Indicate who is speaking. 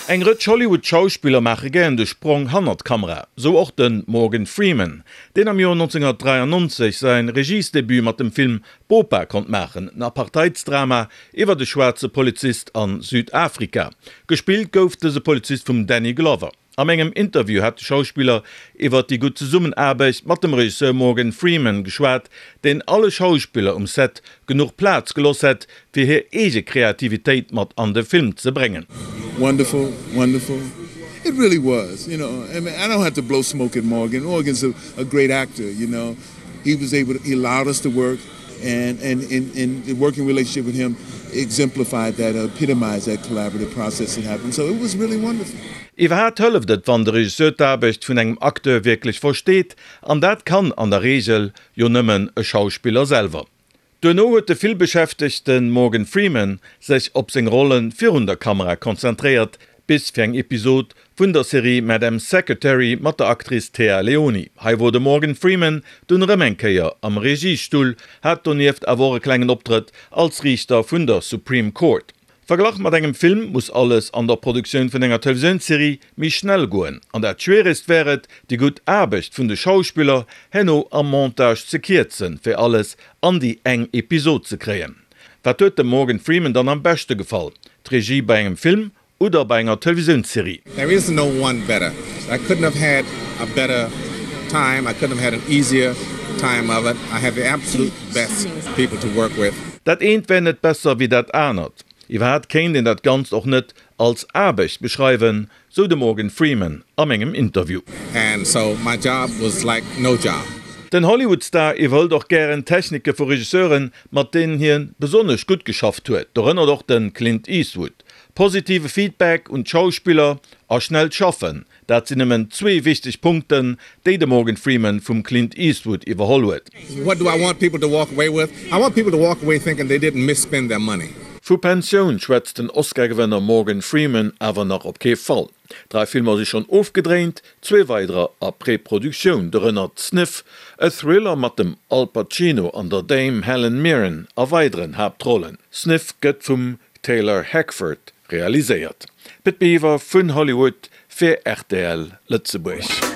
Speaker 1: Eng Rëtsch Hollywood-Schauspiller maache gären de Sprong hannert d'Kamera, sou och de Morgan Freeman, deen am Joer 1993 säin Regiesdebut mat dem Film Bopa konnt maachen, en Apartheidsdrama iwwert e schwaarze Polizist a Südafrika. Gespillt gouf dëse Polizist vum Danny Glover. Am engem Interview hat de Schauspiller iwwert déi gutt Zesummenaarbecht mat dem Regisseur Morgan Freeman geschwat, deen alle Schauspiller um Set genuch Plaz geloss hätt, fir hir eege Kreativitéit mat an de Film ze bréngen.
Speaker 2: Wonderful, wonderful. It really was, you know. I mean, I don't have to blow smoke at Morgan. Morgan's a, a great actor, you know. He was able to, he allowed us to work and, and, and, and the working relationship with him exemplified that, epitomized that collaborative process that happened. So it was really wonderful.
Speaker 1: Iwwerhaapt hëlleft et, wann de Regisseur d'Aarbecht vun engem Acteur wierklech versteet, an dat kann an der Reegel jo nëmmen e Schauspiller selwer. Duerno huet de villbeschäftegte Morgan Freeman sech op seng Rolle virun der Kamera konzentréiert, bis fir eng Episod vun der Serie Madam Secretary mat der Actrice Téa Leoni. Hei wor de Morgan Freeman dunn erëm eng Kéier am Regiestull, hat donieft awer och e klengen Optrëtt als Riichter vun der Supreme Court. Verglach mat engem Film muss alles an der Produktioun vun enger Televisiounsserie méi schnell goen. An dat Schwieregst wär et, déi gutt Aarbecht vun de Schauspiller herno am Montage ze kierzen, fir alles an déi eng Episod ze kréien. Wat huet dem Morgan Freeman dann am beschte gefall? D'Regie bei engem Film oder bei enger Televisiounsserie?
Speaker 3: There is no one better. I couldn't have had a better time, I couldn't have had an easier time of it. I had the absolute best people to work with.
Speaker 1: Dat eent wär net besser wéi dat anert. Iwwerhaapt kéint een dat Ganzt och net als Aarbecht beschreiwen, sou de Morgan Freeman a mengem Interview.
Speaker 3: And so my job was like no job.
Speaker 1: Den Hollywood-Star iwwerhëlt och gären Technike vu Regisseuren, mat deenen hie besonnesch gutt geschafft huet, dorënner och de Clint Eastwood. Positive Feedback un d'Schauspiller a schnellt Schaffen, Dat sinn nëmmen zwee wichteg Punkten, déi de Morgan Freeman vum Clint Eastwood iwwerholl huet.
Speaker 3: What do I want people to walk away with? I want people to walk away thinking they didn't misspend their money.
Speaker 1: Vu Pensioun schwätzt den Oscar-Gewënner Morgan Freeman awer nach op kee Fall. Drai Filmer si schonn ofgedréint, zwee weiderer a Preproduktioun, dorënner Sniff, e Thriller mat dem Al Pacino an der Dame Helen Mirren a weideren Haaptrollen. Sniff gëtt vum Taylor Hackford realiséiert. Pit Biwer vun Hollywood fir rtl Lëtzebuerg.